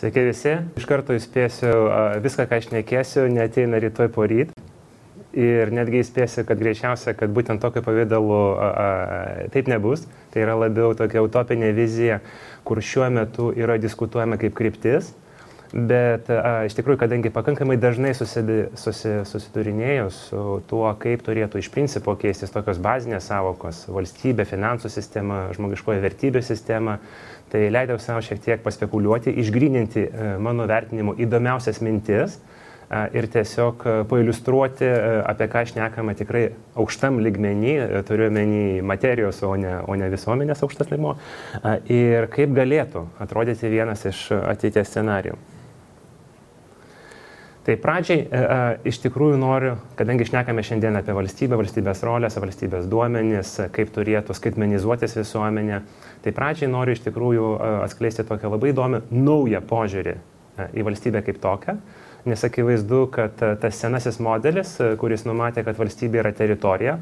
Sveiki visi. Iš karto įspėsiu, viską, ką aš šnekėsiu, neateina rytoj poryt. Ir netgi įspėsiu, kad greičiausia, kad būtent tokio pavydalu taip nebus. Tai yra labiau tokia utopinė vizija, kur šiuo metu yra diskutuojama kaip kryptis. Bet iš tikrųjų, kadangi pakankamai dažnai susidurinėjau su tuo, kaip turėtų iš principo keistis tokios bazinės savokos - valstybė, finansų sistema, žmogiškoji vertybių sistema, tai leidau savo šiek tiek paspekuliuoti, išgryninti mano vertinimu įdomiausias mintis ir tiesiog pailiustruoti, apie ką šnekama tikrai aukštam lygmenį, turiu omeny materijos, o ne visuomenės aukštas lygmuo, ir kaip galėtų atrodyti vienas iš ateities scenarijų. Tai pradžiai iš tikrųjų noriu, kadangi šnekame šiandien apie valstybę, valstybės rolės, valstybės duomenis, kaip turėtų skaitmenizuotis visuomenė, tai pradžiai noriu iš tikrųjų atskleisti tokią labai įdomią naują požiūrį į valstybę kaip tokią, nes akivaizdu, kad tas senasis modelis, kuris numatė, kad valstybė yra teritorija,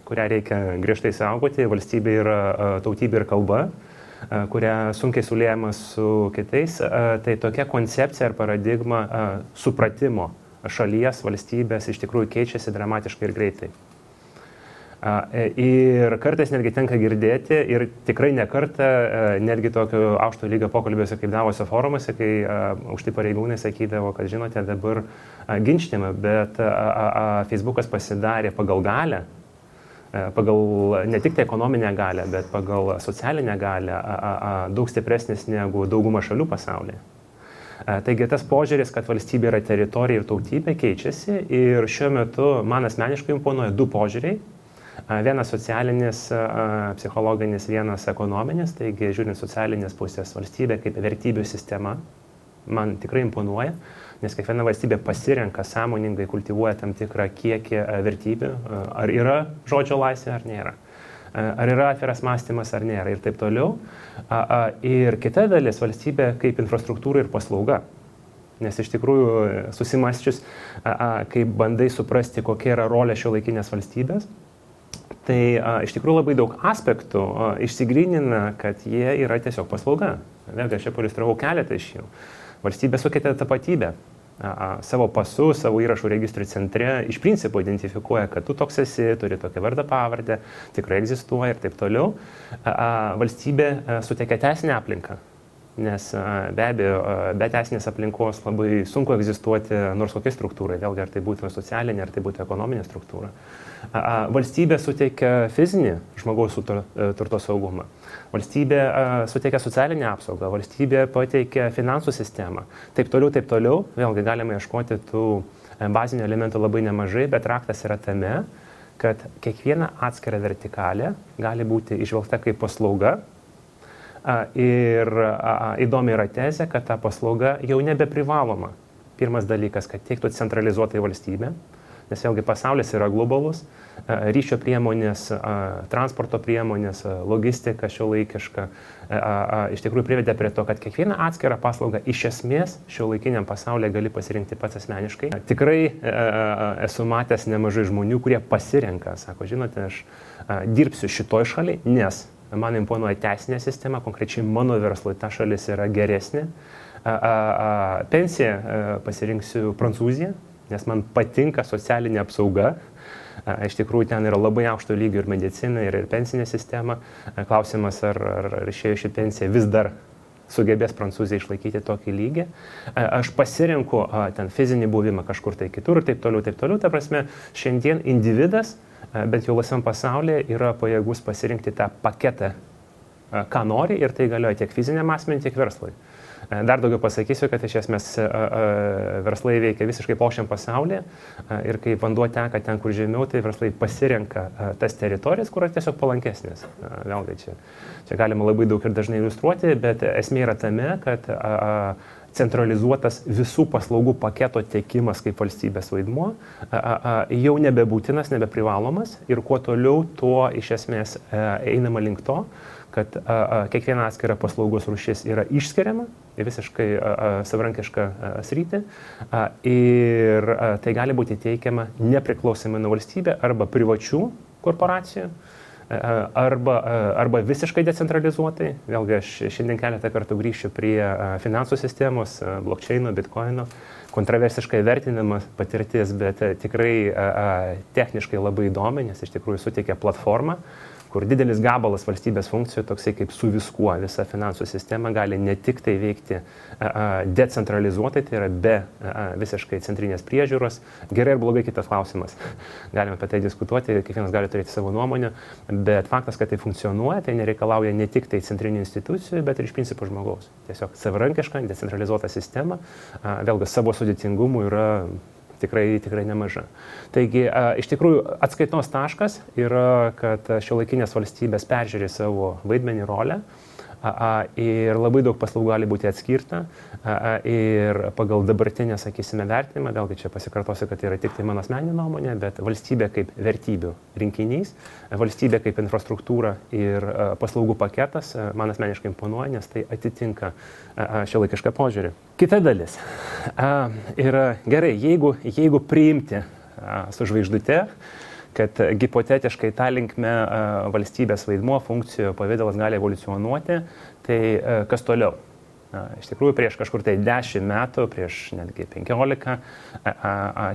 kurią reikia griežtai saugoti, valstybė yra tautybė ir kalba, kurią sunkiai suliejama su kitais, tai tokia koncepcija ar paradigma supratimo šalies, valstybės iš tikrųjų keičiasi dramatiškai ir greitai. Ir kartais netgi tenka girdėti, ir tikrai ne kartą, netgi tokio aukšto lygio pokalbiuose kaip Davosio forumuose, kai aukšti pareigūnai sakydavo, kad žinote, dabar ginčtime, bet Facebookas pasidarė pagal galę, pagal ne tik tai ekonominę galę, bet pagal socialinę galę daug stipresnis negu dauguma šalių pasaulyje. Taigi tas požiūris, kad valstybė yra teritorija ir tautybė, keičiasi ir šiuo metu man asmeniškai imponuoja du požiūriai. Vienas socialinis, psichologinis, vienas ekonominis, taigi žiūrint socialinės pusės valstybė kaip vertybių sistema man tikrai imponuoja, nes kiekviena valstybė pasirenka sąmoningai, kultivuoja tam tikrą kiekį vertybių, ar yra žodžio laisvė ar nėra, ar yra atviras mąstymas ar nėra ir taip toliau. Ir kita dalis valstybė kaip infrastruktūra ir paslauga, nes iš tikrųjų susimąsčius, kai bandai suprasti, kokia yra rolė šiuolaikinės valstybės, tai iš tikrųjų labai daug aspektų išsigrynina, kad jie yra tiesiog paslauga. Vėlgi aš čia pailiustravau keletą iš jų. Valstybė sukeitė tapatybę. Savo pasu, savo įrašų registrų centre iš principo identifikuoja, kad tu toks esi, turi tokią vardą pavardę, tikrai egzistuoja ir taip toliau. Valstybė suteikia teisinę aplinką, nes be abejo, be teisinės aplinkos labai sunku egzistuoti nors kokiai struktūrai, vėlgi ar tai būtų socialinė, ar tai būtų ekonominė struktūra. Valstybė suteikia fizinį žmogaus turto saugumą. Valstybė suteikia socialinę apsaugą, valstybė pateikia finansų sistemą. Taip toliau, vėlgi galime ieškoti tų bazinių elementų labai nemažai, bet raktas yra tame, kad kiekviena atskira vertikalė gali būti išvelgta kaip paslauga. Ir įdomi yra tezė, kad ta paslauga jau nebeprivaloma. Pirmas dalykas, kad teiktų centralizuotai valstybė, nes vėlgi pasaulis yra globalus, ryšio priemonės, transporto priemonės, logistika šiuolaikiška iš tikrųjų privedė prie to, kad kiekvieną atskirą paslaugą iš esmės šiuolaikiniam pasaulyje gali pasirinkti pats asmeniškai. Tikrai esu matęs nemažai žmonių, kurie pasirenka, sako, žinote, aš dirbsiu šitoj šaliai, nes man imponuoja teisinė sistema, konkrečiai mano verslui ta šalis yra geresnė. Pensiją pasirinksiu Prancūziją, nes man patinka socialinė apsauga. Iš tikrųjų, ten yra labai aukšto lygio ir medicina, ir pensinė sistema. Klausimas, ar išėjo ši pensija vis dar sugebės Prancūzija išlaikyti tokį lygį. Aš pasirinku ten fizinį buvimą kažkur tai kitur ir taip toliau. Ta prasme, šiandien individas, bent jau laisvam pasaulyje, yra pajėgus pasirinkti tą paketą, ką nori, ir tai galioja tiek fiziniam asmeniui, tiek verslui. Dar daugiau pasakysiu, kad iš esmės verslai veikia visiškai plokščiam pasaulyje ir kai vanduo teka ten, kur žemiau, tai verslai pasirenka tas teritorijas, kur yra tiesiog palankesnės. Vėlgi čia galima labai daug ir dažnai iliustruoti, bet esmė yra tame, kad centralizuotas visų paslaugų paketo tiekimas kaip valstybės vaidmuo jau nebebūtinas, nebeprivalomas ir kuo toliau, tuo iš esmės einama link to, kad kiekviena atskira paslaugos rūšis yra išskiriama į visiškai savarankišką sritį ir tai gali būti teikiama nepriklausomai nuo valstybė arba privačių korporacijų arba visiškai decentralizuotai. Vėlgi aš šiandien keletą kartų grįšiu prie finansų sistemos, blockchaino, bitcoino, kontroversiškai vertinamas patirtis, bet tikrai techniškai labai įdomi, nes iš tikrųjų suteikia platformą, kur didelis gabalas valstybės funkcijų, toksai kaip su viskuo, visa finansų sistema gali ne tik tai veikti decentralizuotai, tai yra be visiškai centrinės priežiūros. Gerai ir blogai kitas klausimas. Galime apie tai diskutuoti, kiekvienas gali turėti savo nuomonę, bet faktas, kad tai funkcionuoja, tai nereikalauja ne tik tai centrinių institucijų, bet ir iš principo žmogaus. Tiesiog savarankiška, decentralizuota sistema, vėlgi savo sudėtingumu yra tikrai nemaža. Taigi, iš tikrųjų, atskaitos taškas yra, kad šiuolaikinės valstybės peržiūrė savo vaidmenį, rolę ir labai daug paslaugų gali būti atskirta ir pagal dabartinę, sakysime, vertinimą, vėlgi čia pasikartosiu, kad tai yra tik tai mano asmeninė nuomonė, bet valstybė kaip vertybių rinkinys, valstybė kaip infrastruktūra ir paslaugų paketas man asmeniškai imponuoja, nes tai atitinka šiuolaikišką požiūrį. Kita dalis yra gerai, jeigu priimti su žvaigždute, kad hipotetiškai tą linkme valstybės vaidmuo, funkcijų pavidalas gali evoliucionuoti, tai kas toliau? Iš tikrųjų, prieš kažkur tai 10 metų, prieš netgi 15,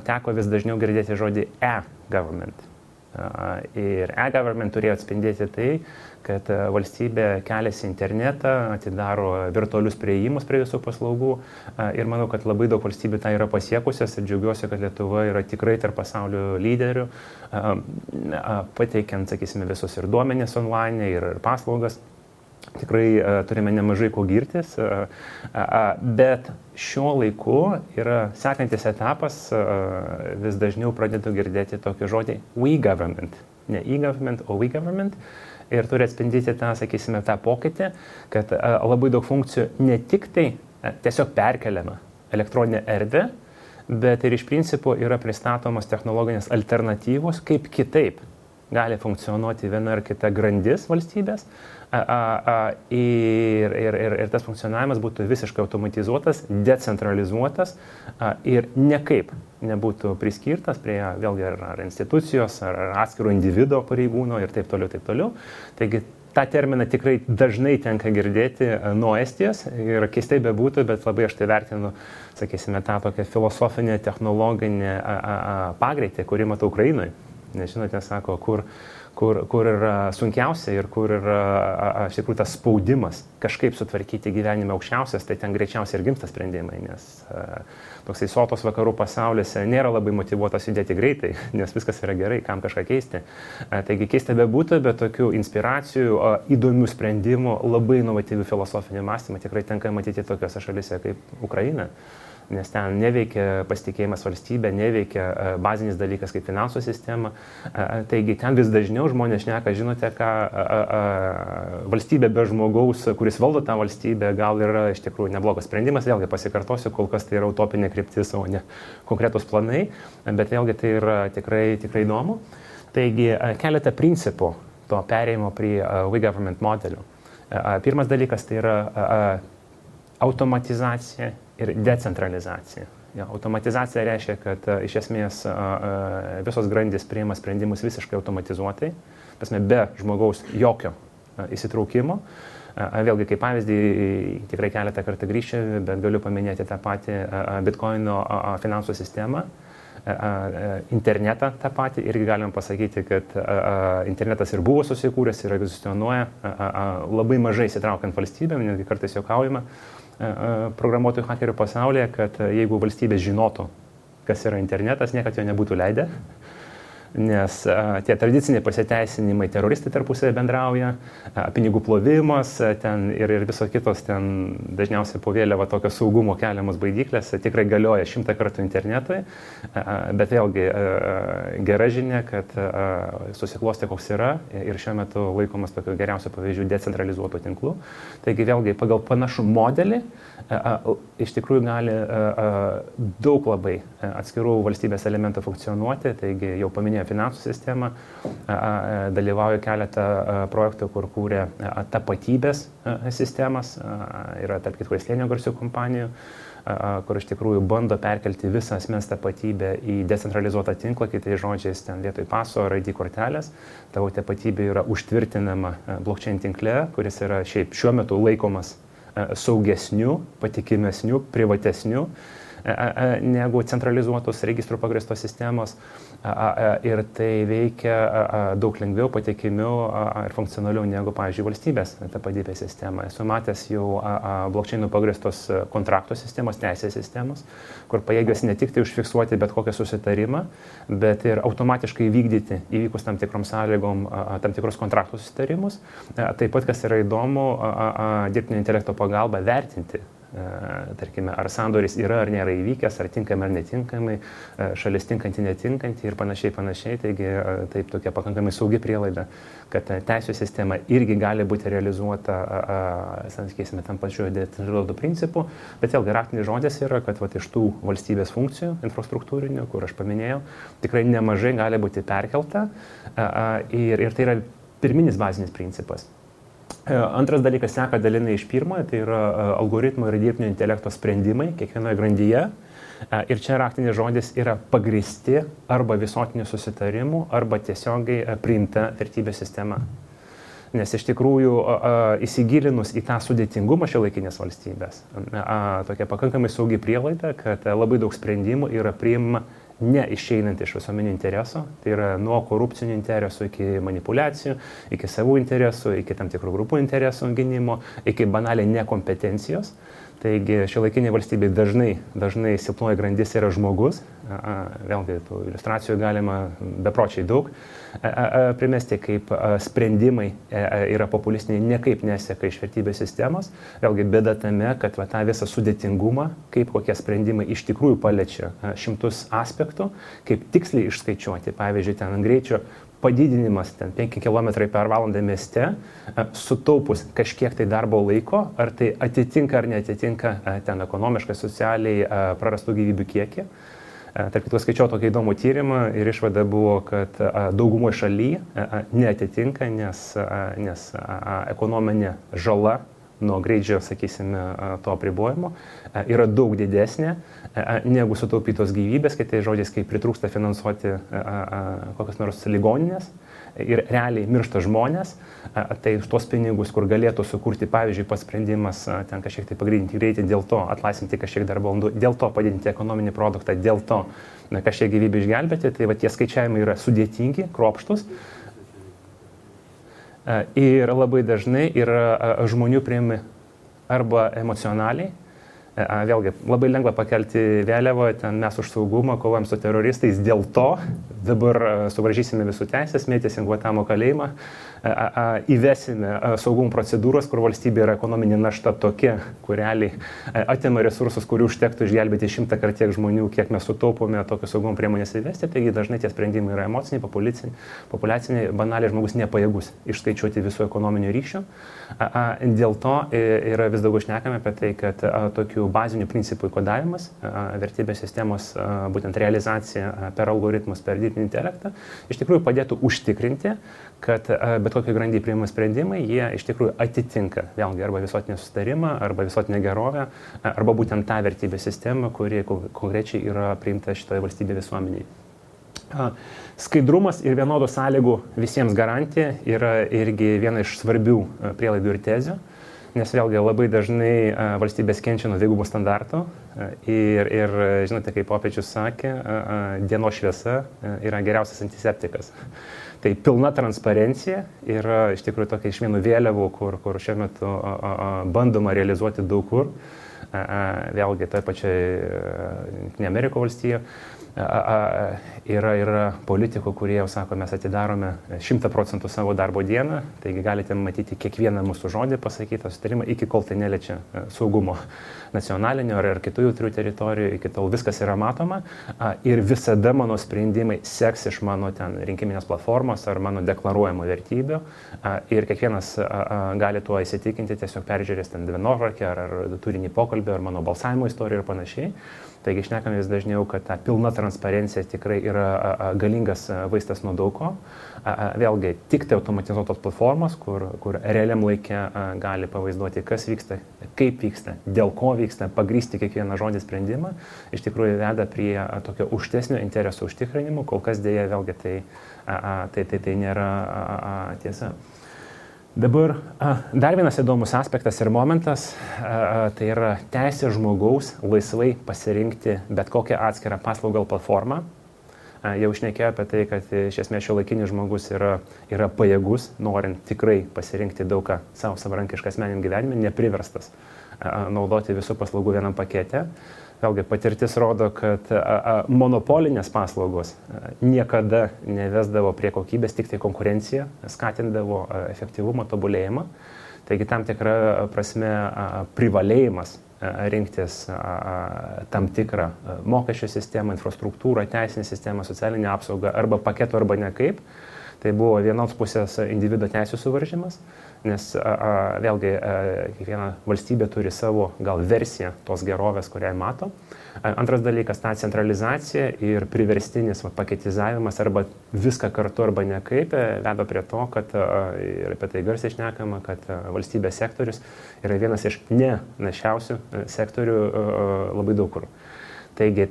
teko vis dažniau girdėti žodį e-government. Ir e-government turėjo atspindėti tai, kad valstybė keliasi į internetą, atidaro virtualius priėjimus prie visų paslaugų ir manau, kad labai daug valstybių tai yra pasiekusios ir džiaugiuosi, kad Lietuva yra tikrai tarp pasaulio lyderių, pateikiant, sakysime, visus ir duomenis online ir paslaugas. Tikrai turime nemažai ko girtis, bet šiuo laiku yra sekantis etapas, vis dažniau pradedu girdėti tokį žodį we government, ne e-government, o we government. Ir turi atspindyti tą, sakysime, tą pokytį, kad labai daug funkcijų ne tik tai tiesiog perkeliama elektroninė erdvė, bet ir iš principo yra pristatomos technologinės alternatyvos, kaip kitaip gali funkcionuoti viena ar kita grandis valstybės ir tas funkcionavimas būtų visiškai automatizuotas, decentralizuotas ir niekaip nebūtų priskirtas prie vėlgi ar institucijos, ar atskiro individo pareigūno ir taip toliau. Taigi tą terminą tikrai dažnai tenka girdėti nuo Estijos ir keistai bebūtų, bet labai aš tai vertinu, sakysime, tą tokią filosofinę, technologinę pagreitį, kurį matau Ukrainoje. Nes žinote, sako, kur yra sunkiausia ir kur yra iš tikrųjų tas spaudimas kažkaip sutvarkyti gyvenime aukščiausias, tai ten greičiausiai ir gimsta sprendimai, nes toksai sotos vakarų pasauliuose nėra labai motyvuotas judėti greitai, nes viskas yra gerai, kam kažką keisti. Taigi keista bebūtų, bet tokių inspiracijų, įdomių sprendimų, labai inovatyvių filosofinių mąstymų tikrai tenka matyti tokiose šalise kaip Ukraina. Nes ten neveikia pasitikėjimas valstybė, neveikia bazinis dalykas kaip finansų sistema. Taigi ten vis dažniau žmonės šneka, žinote, ką valstybė be žmogaus, kuris valdo tą valstybę, gal yra iš tikrųjų neblogas sprendimas. Vėlgi pasikartosiu, kol kas tai yra utopinė kryptis, o ne konkretus planai, bet vėlgi tai yra tikrai įdomu. Taigi keletą principų to perėjimo prie we government modelių. Pirmas dalykas tai yra automatizacija ir decentralizacija. Automatizacija reiškia, kad iš esmės visos grandys priima sprendimus visiškai automatizuotai, be žmogaus jokio įsitraukimo. Vėlgi, kaip pavyzdį, tikrai keletą kartų grįšiu, bet galiu paminėti tą patį bitcoino finansų sistemą, internetą tą patį, irgi galim pasakyti, kad internetas ir buvo susikūręs ir egzistuoja labai mažai įsitraukiant valstybėm, netgi kartais juokaujama programuotojų hakerių pasaulyje, kad jeigu valstybės žinotų, kas yra internetas, niekad jo nebūtų leidę, nes tie tradiciniai pasiteisinimai, teroristai tarpusavį bendrauja, pinigų plovimas ten ir visos kitos ten dažniausiai po vėliava tokio saugumo keliamos baidyklės tikrai galioja 100 kartų internetui, bet vėlgi gera žinia, kad susiklostė koks yra ir šiuo metu laikomas tokiu geriausiu pavyzdžiu decentralizuotų tinklų. Taigi vėlgi pagal panašų modelį iš tikrųjų gali daug labai atskirų valstybės elementų funkcionuoti, taigi jau paminėjau finansų sistemą, dalyvauju keletą projektų, kur kūrė tapatybės sistemas, yra tarp kitko Slėnio garsių kompanijų, kur iš tikrųjų bando perkelti visą asmens tapatybę į decentralizuotą tinklą, kitais žodžiais, ten vietoj paso ar ID kortelės, tavo tapatybė yra užtvirtinama blockchain tinkle, kuris yra šiaip šiuo metu laikomas saugesniu, patikimesniu, privatesniu negu centralizuotos registrų pagrįstos sistemos ir tai veikia daug lengviau, patikimiau ir funkcionaliau negu, pavyzdžiui, valstybės tapatybės sistema. Esu matęs jau blockchainų pagrįstos kontraktų sistemos, teisės sistemos, kur pajėgios ne tik tai užfiksuoti bet kokią susitarimą, bet ir automatiškai vykdyti įvykus tam tikrom sąlygom tam tikrus kontraktų susitarimus. Taip pat, kas yra įdomu, dirbtinio intelekto pagalba vertinti, tarkime, ar sandoris yra ar nėra įvykęs, ar tinkamai ar netinkamai, šalis tinkanti, netinkanti ir panašiai. Taigi taip tokia pakankamai saugi prielaida, kad teisų sistema irgi gali būti realizuota, sakysime, tam pačiu decentralizuotu principu, bet vėlgi raktinis žodis yra, kad iš tų valstybės funkcijų infrastruktūrinių, kur aš paminėjau, tikrai nemažai gali būti perkelta ir tai yra pirminis bazinis principas. Antras dalykas seka dalinai iš pirmojo, tai yra algoritmų ir dirbtinio intelekto sprendimai kiekvienoje grandyje. Ir čia raktinis žodis yra pagrįsti arba visuotinių susitarimų, arba tiesiogiai priimta vertybės sistema. Nes iš tikrųjų įsigilinus į tą sudėtingumą šiuolaikinės valstybės, tokia pakankamai saugi prielaida, kad labai daug sprendimų yra priimama neišeinant iš visuomeninių interesų, tai yra nuo korupcinių interesų iki manipuliacijų, iki savų interesų, iki tam tikrų grupų interesų gynimo, iki banaliai nekompetencijos. Taigi šiuolaikinė valstybė dažnai silpnoji grandis yra žmogus, vėlgi tų iliustracijų galima bepročiai daug primesti, kaip sprendimai yra populistiniai, nekaip neseka iš vertybės sistemos. Vėlgi bėda tame, kad tą visą sudėtingumą, kaip kokie sprendimai iš tikrųjų paliečia šimtus aspektų, kaip tiksliai išskaičiuoti, pavyzdžiui, ten greičio padidinimas 5 km per valandą mieste, sutaupus kažkiek tai darbo laiko, ar tai atitinka ar neatitinka ten ekonomiškai, socialiai prarastų gyvybių kiekį. Tarp kitų skaičiau tokį įdomų tyrimą ir išvada buvo, kad daugumoje šalyje neatitinka, nes ekonominė žala nuo greičio, sakysime, to apribojimo yra daug didesnė negu sutaupytos gyvybės, kitais žodžiais, kai pritrūksta finansuoti kokias nors ligoninės ir realiai miršta žmonės, tai už tos pinigus, kur galėtų sukurti, pavyzdžiui, pats sprendimas ten kažkiek tai pagreitinti greitį, dėl to atlaisvinti kažkiek darbo valandų, dėl to padidinti ekonominį produktą, dėl to kažkiek gyvybę išgelbėti, tai va tie skaičiavimai yra sudėtingi, kruopštūs. Ir labai dažnai yra žmonių priimi arba emocionaliai. Vėlgi, labai lengva pakelti vėliavą, ten mes už saugumą kovojam su teroristais, dėl to dabar suvaržysime visų teisės, mėtysim Guantanamo kalėjimą, įvesime saugumo procedūros, kur valstybė yra ekonominė našta tokia, kur realiai atima resursus, kurių užtektų išgelbėti 100 kart tiek žmonių, kiek mes sutaupome tokios saugumo priemonės įvesti, taigi dažnai tie sprendimai yra emociniai, populiaciniai, banaliai žmogus nepajėgus išskaičiuoti visų ekonominių ryšių. Dėl to yra vis daugiau šnekame apie tai, kad tokių bazinių principų kodavimas, vertybės sistemos būtent realizacija per algoritmus, per dirbtinį intelektą, iš tikrųjų padėtų užtikrinti, kad bet kokie grandyje priimami sprendimai, jie iš tikrųjų atitinka vėlgi arba visuotinį susitarimą, arba visuotinę gerovę, arba būtent tą vertybės sistemą, kuri konkrečiai yra priimta šitoje valstybėje visuomeniai. Skaidrumas ir vienodų sąlygų visiems garantija yra irgi viena iš svarbių prielaidų ir tezių, nes vėlgi labai dažnai valstybės kenčia nuo dvigubų standartų ir žinote, kaip popiežius sakė, dienos šviesa yra geriausias antiseptikas. Tai pilna transparencija yra iš tikrųjų tokia iš vienų vėliavų, kur šiuo metu bandoma realizuoti daug kur, vėlgi toje pačioje Amerikos valstijoje. Yra politikų, kurie jau sako, mes atidarome 100% savo darbo dieną, taigi galite matyti kiekvieną mūsų žodį pasakytą sutarimą, iki kol tai neliečia saugumo nacionalinio ar kitų jautrių teritorijų, iki tol viskas yra matoma ir visada mano sprendimai seks iš mano ten rinkiminės platformos ar mano deklaruojamų vertybių ir kiekvienas gali tuo įsitikinti, tiesiog peržiūrės ten dienotvarkę ar turinį pokalbį pokalbio, ar mano balsavimo istoriją ir panašiai. Taigi šnekame vis dažniau, kad ta pilna transparencija tikrai yra galingas vaistas nuo daug ko. Vėlgi, tik tai automatizuotos platformos, kur realiam laikė gali pavaizduoti, kas vyksta, kaip vyksta, dėl ko vyksta, pagrįsti kiekvieną žodį sprendimą, iš tikrųjų veda prie tokio aukštesnio interesų užtikrinimo, kol kas dėja vėlgi tai nėra tiesa. Dabar dar vienas įdomus aspektas ir momentas, tai yra teisė žmogaus laisvai pasirinkti bet kokią atskirą paslaugą platformą. Jau šnekėjau apie tai, kad iš esmės šiuolaikinis žmogus yra pajėgus, norint tikrai pasirinkti daug ką savo savarankišką asmeniniam gyvenime, nepriverstas naudoti visų paslaugų vienam pakete. Vėlgi patirtis rodo, kad monopolinės paslaugos niekada nevesdavo prie kokybės, tik tai konkurencija skatindavo efektyvumą, tobulėjimą. Taigi tam tikra prasme privalėjimas rinktis tam tikrą mokesčių sistemą, infrastruktūrą, teisinę sistemą, socialinę apsaugą arba paketų arba nekaip. Tai buvo vienos pusės individo teisų suvaržymas, nes vėlgi kiekviena valstybė turi savo gal versiją tos gerovės, kurią mato. Antras dalykas, ta centralizacija ir priverstinis paketizavimas arba viską kartu arba nekaip veda prie to, kad ir apie tai garsiai šnekama, kad valstybės sektorius yra vienas iš nenašiausių sektorių labai daug kur. Taigi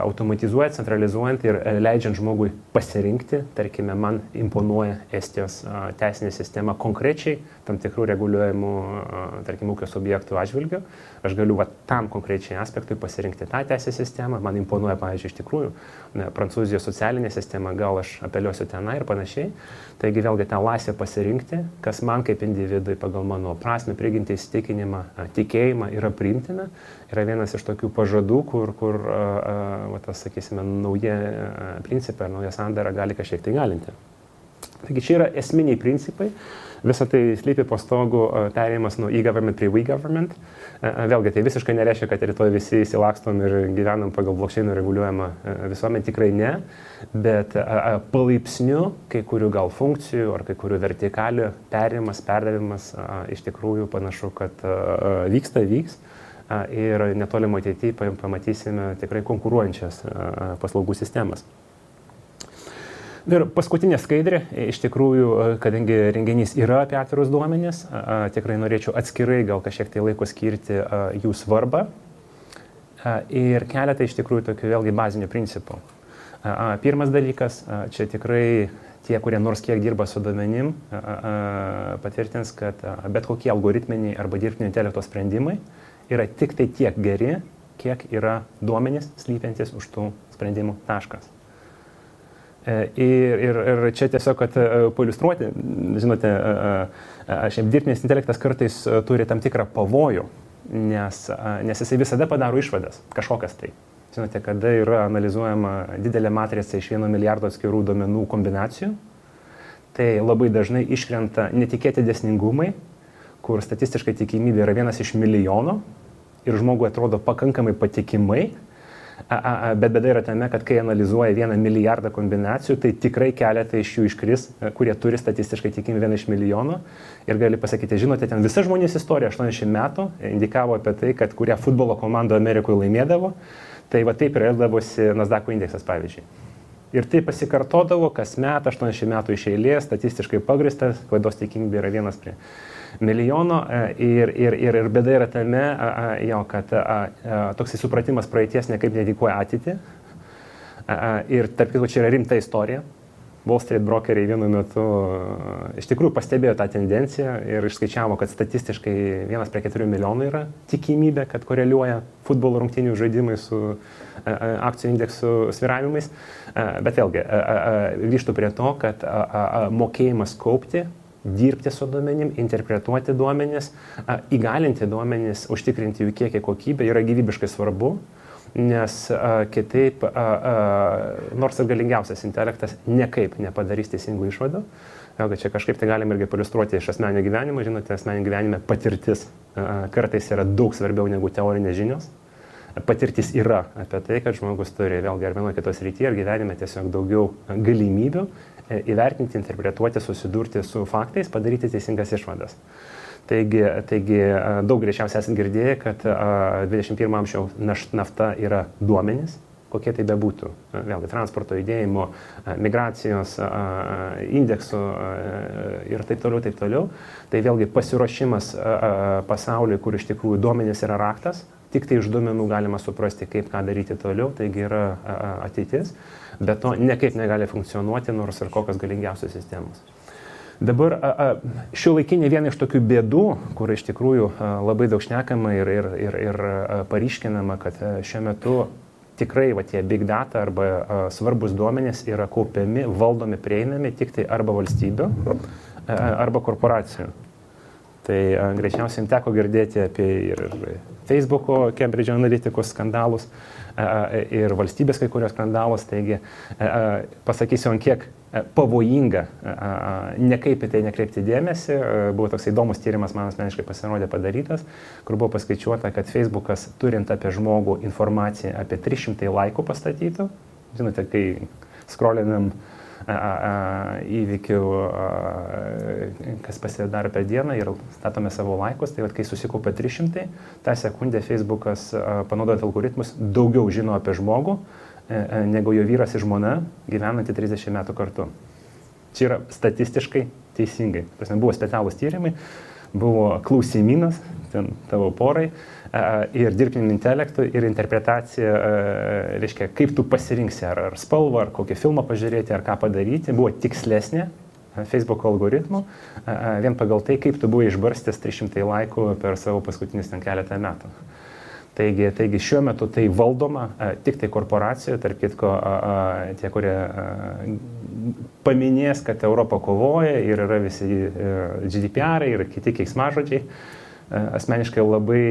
automatizuojant, centralizuojant ir leidžiant žmogui pasirinkti, tarkime, man imponuoja Estijos teisinė sistema konkrečiai tam tikrų reguliuojamų, tarkim, ūkio subjektų atžvilgių. Aš galiu tam konkrečiai aspektui pasirinkti tą teisės sistemą, man imponuoja, pavyzdžiui, iš tikrųjų, Prancūzijos socialinė sistema, gal aš apeliuosiu tenai ir panašiai. Taigi vėlgi tą laisvę pasirinkti, kas man kaip individui pagal mano prasmę, prigimtį, įsitikinimą, tikėjimą yra priimtina, yra vienas iš tokių pažadų, kur sakysime, nauja principai ar nauja sandara gali kažkiek tai galinti. Taigi čia yra esminiai principai, visą tai slypi po stogu perėjimas nuo e-government prie we-government. Vėlgi, tai visiškai nereiškia, kad rytoj visi įsilakstom ir gyvenam pagal blockchain'o reguliuojamą visuomenę, tikrai ne, bet palaipsniu kai kurių gal funkcijų ar kai kurių vertikalių perėjimas, perdavimas iš tikrųjų panašu, kad vyks. Ir netolimo ateityje pamatysime tikrai konkuruojančias paslaugų sistemas. Ir paskutinė skaidrė, iš tikrųjų, kadangi renginys yra apie atvirus duomenis, tikrai norėčiau atskirai gal kažkiek tai laiko skirti jų svarbą ir keletą iš tikrųjų tokių vėlgi bazinių principų. Pirmas dalykas, čia tikrai tie, kurie nors kiek dirba su duomenim, patvirtins, kad bet kokie algoritminiai arba dirbtinio intelekto sprendimai yra tik tai tiek geri, kiek yra duomenys slypiantis už tų sprendimų taškas. Ir čia tiesiog, kad pailiustruoti, žinote, šiaip dirbtinis intelektas kartais turi tam tikrą pavojų, nes jisai visada padaro išvadas, kažkokias tai. Žinote, kada yra analizuojama didelė matrica iš 1 milijardo atskirų duomenų kombinacijų, tai labai dažnai iškrenta netikėti dėsningumai, kur statistiškai tikimybė yra 1 iš milijono ir žmogui atrodo pakankamai patikimai, bet bėda yra tame, kad kai analizuoja 1 milijardą kombinacijų, tai tikrai keletą iš jų iškris, kurie turi statistiškai tikimybę 1 iš milijono ir gali pasakyti, žinote, ten visa žmonijos istorija 80 metų indikavo apie tai, kad kuria futbolo komanda Amerikoje laimėdavo, tai va taip ir elgdavosi Nasdaqo indeksas, pavyzdžiui. Ir tai pasikartodavo kas met, 80 metų iš eilės, statistiškai pagristas, klaidos tikimybė yra 1 prie milijono ir bėda yra tame, kad toksai supratimas praeities nekaip nedikuoja ateitį. Ir tarp kitko, čia yra rimta istorija. Wall Street brokeriai vienu metu iš tikrųjų pastebėjo tą tendenciją ir išskaičiavo, kad statistiškai 1 prie 4 milijonų yra tikimybė, kad koreliuoja futbolo rungtynių žaidimai su akcijų indeksų svyravimais. Bet vėlgi, grįžtu prie to, kad mokėjimas kaupti, dirbti su duomenim, interpretuoti duomenis, įgalinti duomenis, užtikrinti jų kiekį kokybę yra gyvybiškai svarbu. Nes kitaip, nors ir galingiausias intelektas nekaip nepadarys teisingų išvadų. Vėlgi čia kažkaip tai galim irgi paliustruoti iš asmeninio gyvenimo. Žinote, asmeninio gyvenime patirtis kartais yra daug svarbiau negu teorinės žinios. Patirtis yra apie tai, kad žmogus turi vėlgi ar vienoje kitos srityje ar gyvenime tiesiog daugiau galimybių įvertinti, interpretuoti, susidurti su faktais, padaryti teisingas išvadas. Taigi daug greičiausiai esate girdėję, kad 21 amžiaus nafta yra duomenys, kokie tai bebūtų. Vėlgi transporto judėjimo, migracijos, indeksų ir taip toliau. Tai vėlgi pasiruošimas pasauliui, kur iš tikrųjų duomenys yra raktas, tik tai iš duomenų galima suprasti, kaip ką daryti toliau, taigi yra ateitis, bet to niekaip negali funkcionuoti, nors ir kokios galingiausios sistemos. Dabar šiuolaikinė viena iš tokių bėdų, kur iš tikrųjų labai daug šnekama ir paryškinama, kad šiuo metu tikrai tie big data arba svarbus duomenys yra kaupiami, valdomi, prieinami tik tai arba valstybių, arba korporacijų. Tai greičiausiai teko girdėti apie ir Facebook'o, Cambridge Analyticos skandalus ir valstybės kai kurios skandalus. Taigi pasakysiu, ant kiek pavojinga nekaip į tai nekreipti dėmesį. Buvo toks įdomus tyrimas, man asmeniškai pasirodė padarytas, kur buvo paskaičiuota, kad Facebook'as turint apie žmogų informaciją apie 300 laikų pastatytų. Žinote, kai scrollinam įvykių, kas pasidaro per dieną ir statome savo laikus, tai kai susikaupia 300, tą sekundę Facebook'as panaudojant algoritmus daugiau žino apie žmogų, negu jo vyras ir žmona gyvenanti 30 metų kartu. Čia yra statistiškai teisingai. Buvo specialūs tyrimai, buvo klausimynas ten tavo porai ir dirbtiniu intelektu ir interpretacija, reiškia, kaip tu pasirinksi, ar spalvą, ar kokį filmą pažiūrėti, ar ką padaryti, buvo tikslesnė Facebook algoritmų, vien pagal tai, kaip tu buvai išbarstęs 300 laikų per savo paskutinius ten keletą metų. Taigi šiuo metu tai valdoma tik tai korporacijų, tarp kitko tie, kurie paminės, kad Europa kovoja ir yra visi GDPR ir kiti keiksmažodžiai. Asmeniškai labai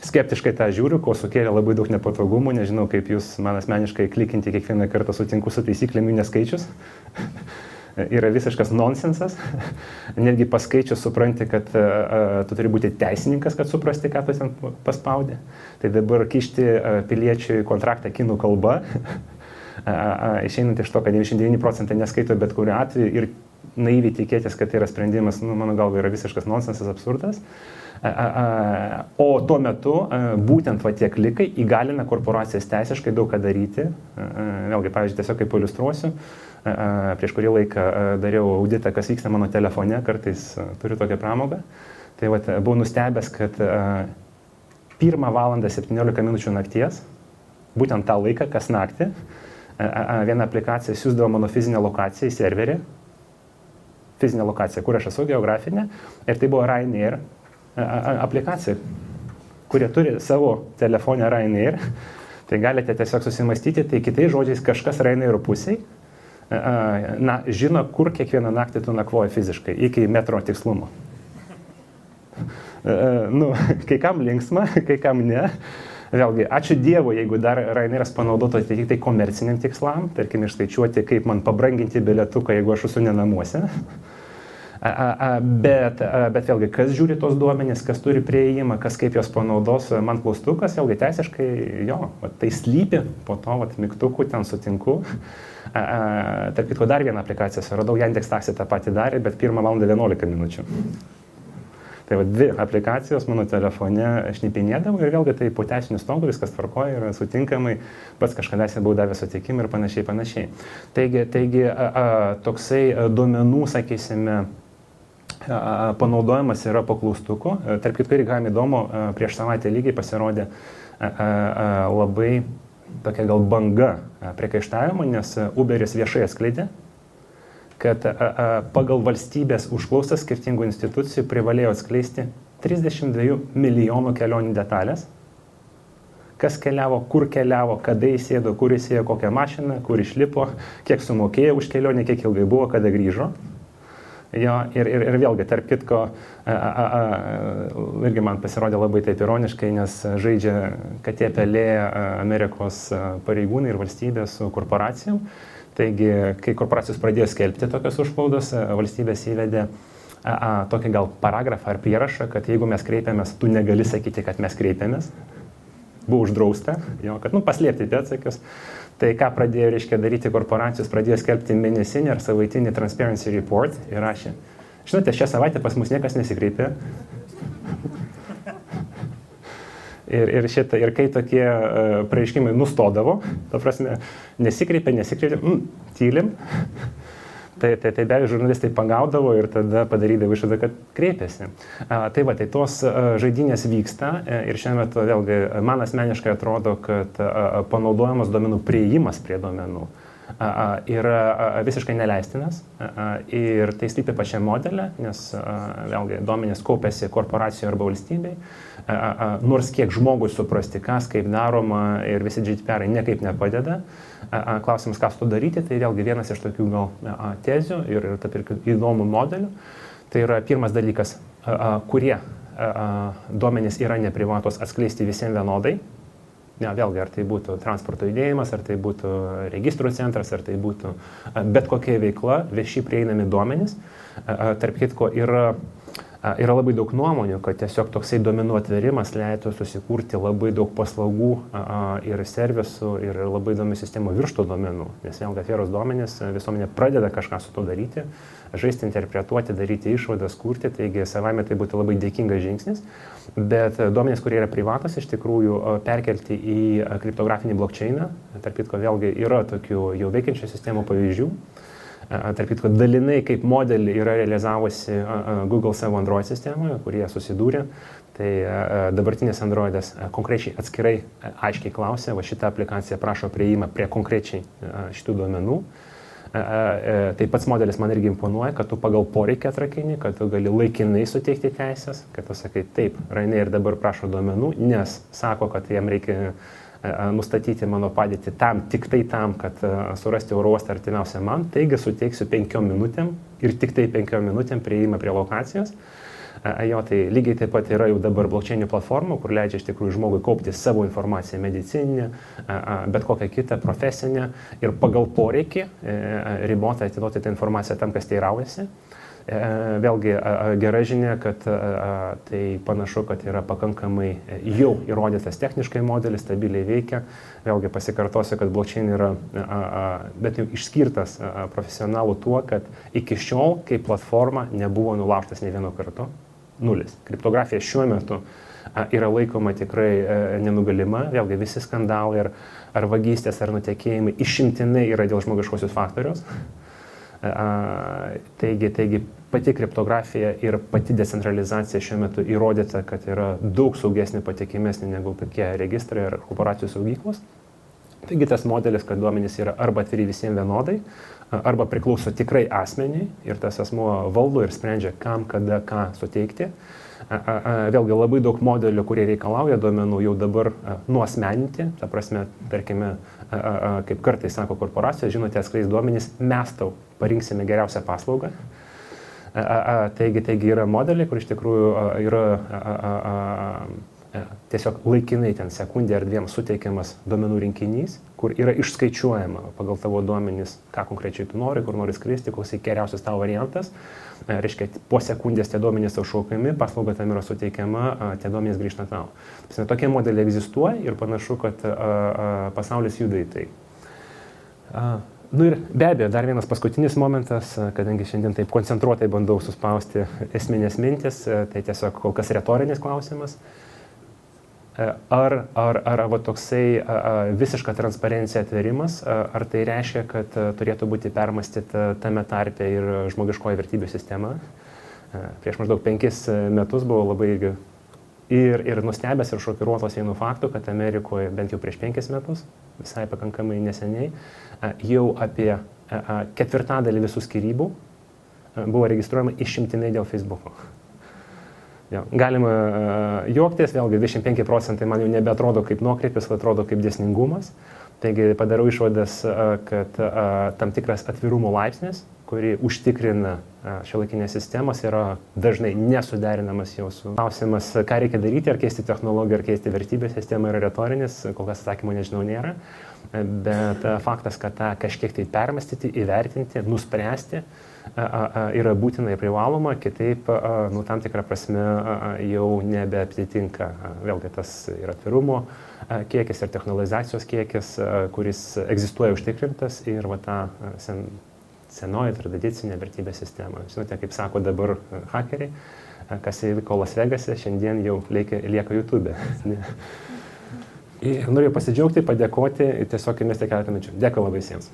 skeptiškai tą žiūriu, ko sukėlė labai daug nepatogumų, nežinau kaip jūs man asmeniškai klikinti kiekvieną kartą sutinku su taisyklėmis neskaičius. Yra visiškas nonsensas. Netgi paskaičius supranti, kad tu turi būti teisininkas, kad suprasti, ką tu ten paspaudė. Tai dabar kišti piliečiui kontraktą kinų kalba, išeinant iš to, kad 99% neskaito bet kuriuo atveju ir naiviai tikėtis, kad tai yra sprendimas, mano galva, yra visiškas nonsensas, absurdas. O tuo metu būtent tie klikai įgalina korporacijas teisiškai daug ką daryti. Vėlgi, pavyzdžiui, tiesiog kaip iliustruosiu, prieš kurį laiką dariau auditą, kas vyksta mano telefone, kartais turiu tokią pramogą. Tai buvau nustebęs, kad 1 valandą 17 minučių nakties, būtent tą laiką, kas naktį, viena aplikacija siūsdavo mano fizinę lokaciją į serverį, fizinę lokaciją, kur aš esu, geografinę, ir tai buvo Ryanair aplikacija, kurie turi savo telefonę Ryanair, tai galite tiesiog susimastyti, tai kitais žodžiais kažkas Ryanair pusiai, žino, kur kiekvieną naktį tu nakvoji fiziškai, iki metro tikslumo. Kai kam linksma, kai kam ne. Vėlgi, ačiū Dievui, jeigu dar Ryanairas panaudotų tik tai komerciniam tikslam, tarkim, išskaičiuoti, kaip man pabranginti bilietuką, jeigu aš esu ne namuose. Bet vėlgi, kas žiūri tos duomenys, kas turi prieėjimą, kas kaip jos panaudos, man klaustukas, vėlgi teisiškai, tai slypi, po to mygtukų ten sutinku. Tarp kitko dar vieną aplikaciją suradau, Yandex Taxi tą patį darė, bet 1 valandą 11 minučių. Tai 2 aplikacijos mano telefone šnipinėdavo ir vėlgi tai po teisinių stogų viskas tvarkoja ir sutinkamai, pats kažkadaise buvau davęs sutikimą ir panašiai. Taigi toksai duomenų, sakysime, panaudojimas yra po klaustuku. Tarp kitko, irgi galime įdomu, prieš savaitę lygiai pasirodė labai tokia gal banga priekaištavimo, nes Uberis viešai atskleidė, kad pagal valstybės užklausas skirtingų institucijų privalėjo atskleisti 32 milijonų kelionių detalės. Kas keliavo, kur keliavo, kada įsėdo, kur įsėjo, kokią mašiną, kur išlipo, kiek sumokėjo už kelionę, kiek ilgai buvo, kada grįžo. Ir vėlgi, tarp kitko, irgi man pasirodė labai taip ironiškai, nes žaidžia katė pelė Amerikos pareigūnai ir valstybė su korporacijom. Taigi, kai korporacijos pradėjo skelbti tokios užklaudos, valstybės įvedė tokį gal paragrafą ar prierašą, kad jeigu mes kreipiamės, tu negali sakyti, kad mes kreipiamės. buvo uždrausta, jo, kad paslėpti pėdsakius. Tai ką pradėjo, reiškia, daryti korporacijos, pradėjo skelbti mėnesinį ar savaitinį Transparency Report ir rašė. Žinote, šią savaitę pas mus niekas nesikreipė. Ir kai tokie pareiškimai nustodavo, ta prasme, nesikreipė, tylim, tai be abejo žurnalistai pagaudavo ir tada padarydavo išvadą, kad kreipėsi. Tai tos žaidynės vyksta ir šiuo metu vėlgi man asmeniškai atrodo, kad panaudojamas duomenų priėjimas prie duomenų yra visiškai neleistinas ir tai slypi pačiam modelė, nes vėlgi duomenys kaupiasi korporacijoje arba valstybei, nors kiek žmogui suprasti, kas kaip daroma ir visi GDPR niekaip nepadeda. Klausimas, ką su to daryti, tai vėlgi vienas iš tokių gal tezių ir įdomų modelių. Tai yra pirmas dalykas, kurie duomenys yra neprivatos atskleisti visiems vienodai. Vėlgi, ar tai būtų transporto judėjimas, ar tai būtų registrų centras, ar tai būtų bet kokia veikla, vieši prieinami duomenys. Tarp kitko yra labai daug nuomonių, kad tiesiog toksai duomenų atverimas leidtų susikurti labai daug paslaugų ir servisų ir labai įdomių sistemų virš tų duomenų. Nes vėlgi atvėrus duomenys visuomenė pradeda kažką su to daryti, žaisti, interpretuoti, daryti išvadas, kurti, taigi savame tai būtų labai dėkingas žingsnis. Bet duomenys, kurie yra privatus, iš tikrųjų perkelti į kriptografinį blockchainą, tarp kitko vėlgi yra tokių jau veikiančių sistemų pavyzdžių. Tarp kitko dalinai kaip modelį yra realizavusi Google savo Android sistemoje, kurie susidūrė. Tai dabartinės Androidas konkrečiai atskirai aiškiai klausia, va šitą aplikaciją prašo prieimą prie konkrečiai šitų duomenų. Tai pats modelis man irgi imponuoja, kad tu pagal poreikį atrakini, kad tu gali laikinai suteikti teisės, kad tu sakai taip, Ryanair dabar prašo duomenų, nes sako, kad jam reikia nustatyti mano padėtį tik tai tam, kad surasti oro uostą artimiausią man, taigi suteiksiu 5 minutėm ir tik tai 5 minutėm prieimą prie lokacijos. Tai lygiai taip pat yra jau dabar blockchainų platformų, kur leidžia iš tikrųjų žmogui kaupti savo informaciją medicininę, bet kokią kitą profesinę ir pagal poreikį ribotai atiduoti tą informaciją tam, kas teiraujasi. Vėlgi gera žinia, kad tai panašu, kad yra pakankamai jau įrodytas techniškai modelis, stabiliai veikia. Vėlgi pasikartosiu, kad blockchain yra bet jau išskirtas profesionalų tuo, kad iki šiol kaip platforma nebuvo nulaužtas nei vieno kartu. Nulis. Kriptografija šiuo metu yra laikoma tikrai nenugalima. Vėlgi visi skandalai ar vagystės ar nutekėjimai išimtinai yra dėl žmogiškosios faktoriaus. Taigi pati kriptografija ir pati decentralizacija šiuo metu įrodyta, kad yra daug saugesnė, patikimesnė negu kokie registrai ar korporacijų saugyklos. Taigi tas modelis, kad duomenys yra arba atviri visiems vienodai, arba priklauso tikrai asmeniai ir tas asmuo valdo ir sprendžia, kam, kada, ką suteikti. Vėlgi labai daug modelių, kurie reikalauja duomenų jau dabar nuasmeninti, ta prasme, tarkime, kaip kartais sako korporacijos, žinote, atskleis duomenys, mes tau parinksime geriausią paslaugą. Taigi yra modeliai, kur iš tikrųjų yra tiesiog laikinai ten sekundė ar dviem suteikiamas duomenų rinkinys, kur yra išskaičiuojama pagal tavo duomenys, ką konkrečiai tu nori, kur nori skristi, koks geriausias tavo variantas. Reiškia, po sekundės tie duomenys tau šaukiami, paslauga tam yra suteikiama, tie duomenys grįžta tau. Tokie modeliai egzistuoja ir panašu, kad pasaulis juda į tai. Ir be abejo, dar vienas paskutinis momentas, kadangi šiandien taip koncentruotai bandau suspausti esminės mintis, tai tiesiog kol kas retorinis klausimas. Ar toksai visiška transparencija atverimas, ar tai reiškia, kad turėtų būti permąstyta tame tarpe ir žmogiškoji vertybių sistema? Prieš maždaug 5 metus buvo labai ir nustebęs ir šokiruotas vienu faktu, kad Amerikoje bent jau prieš 5 metus, visai pakankamai neseniai, jau apie 1/4 visų skyrybų buvo registruojama išimtinai dėl Facebook'o. Galima juoktis, vėlgi 25% man jau nebeatrodo kaip nuokrypis, atrodo kaip dėsningumas. Taigi padarau išvadas, kad tam tikras atvirumo laipsnis, kurį užtikrina šiuolaikinės sistemos, yra dažnai nesuderinamas jau su klausimas, ką reikia daryti, ar keisti technologiją, ar keisti vertybės sistemą, yra retorinis, kol kas atsakymo nežinau nėra. bet faktas, kad tą kažkiek tai permastyti, įvertinti, nuspręsti yra būtina ir privaloma, kitaip, tam tikrą prasme jau nebeaptitinka. Vėlgi tas ir atvirumo kiekis, ir technologizacijos kiekis, kuris egzistuoja užtikrintas ir ta senoji tradicinė vertybė sistema. Žinote, kaip sako dabar hakeriai, kas įvyko Las Vegase, šiandien jau lieka YouTube. Ir noriu pasidžiaugti, padėkoti ir tiesiog įmesti keletą minučių. Dėkui labai visiems.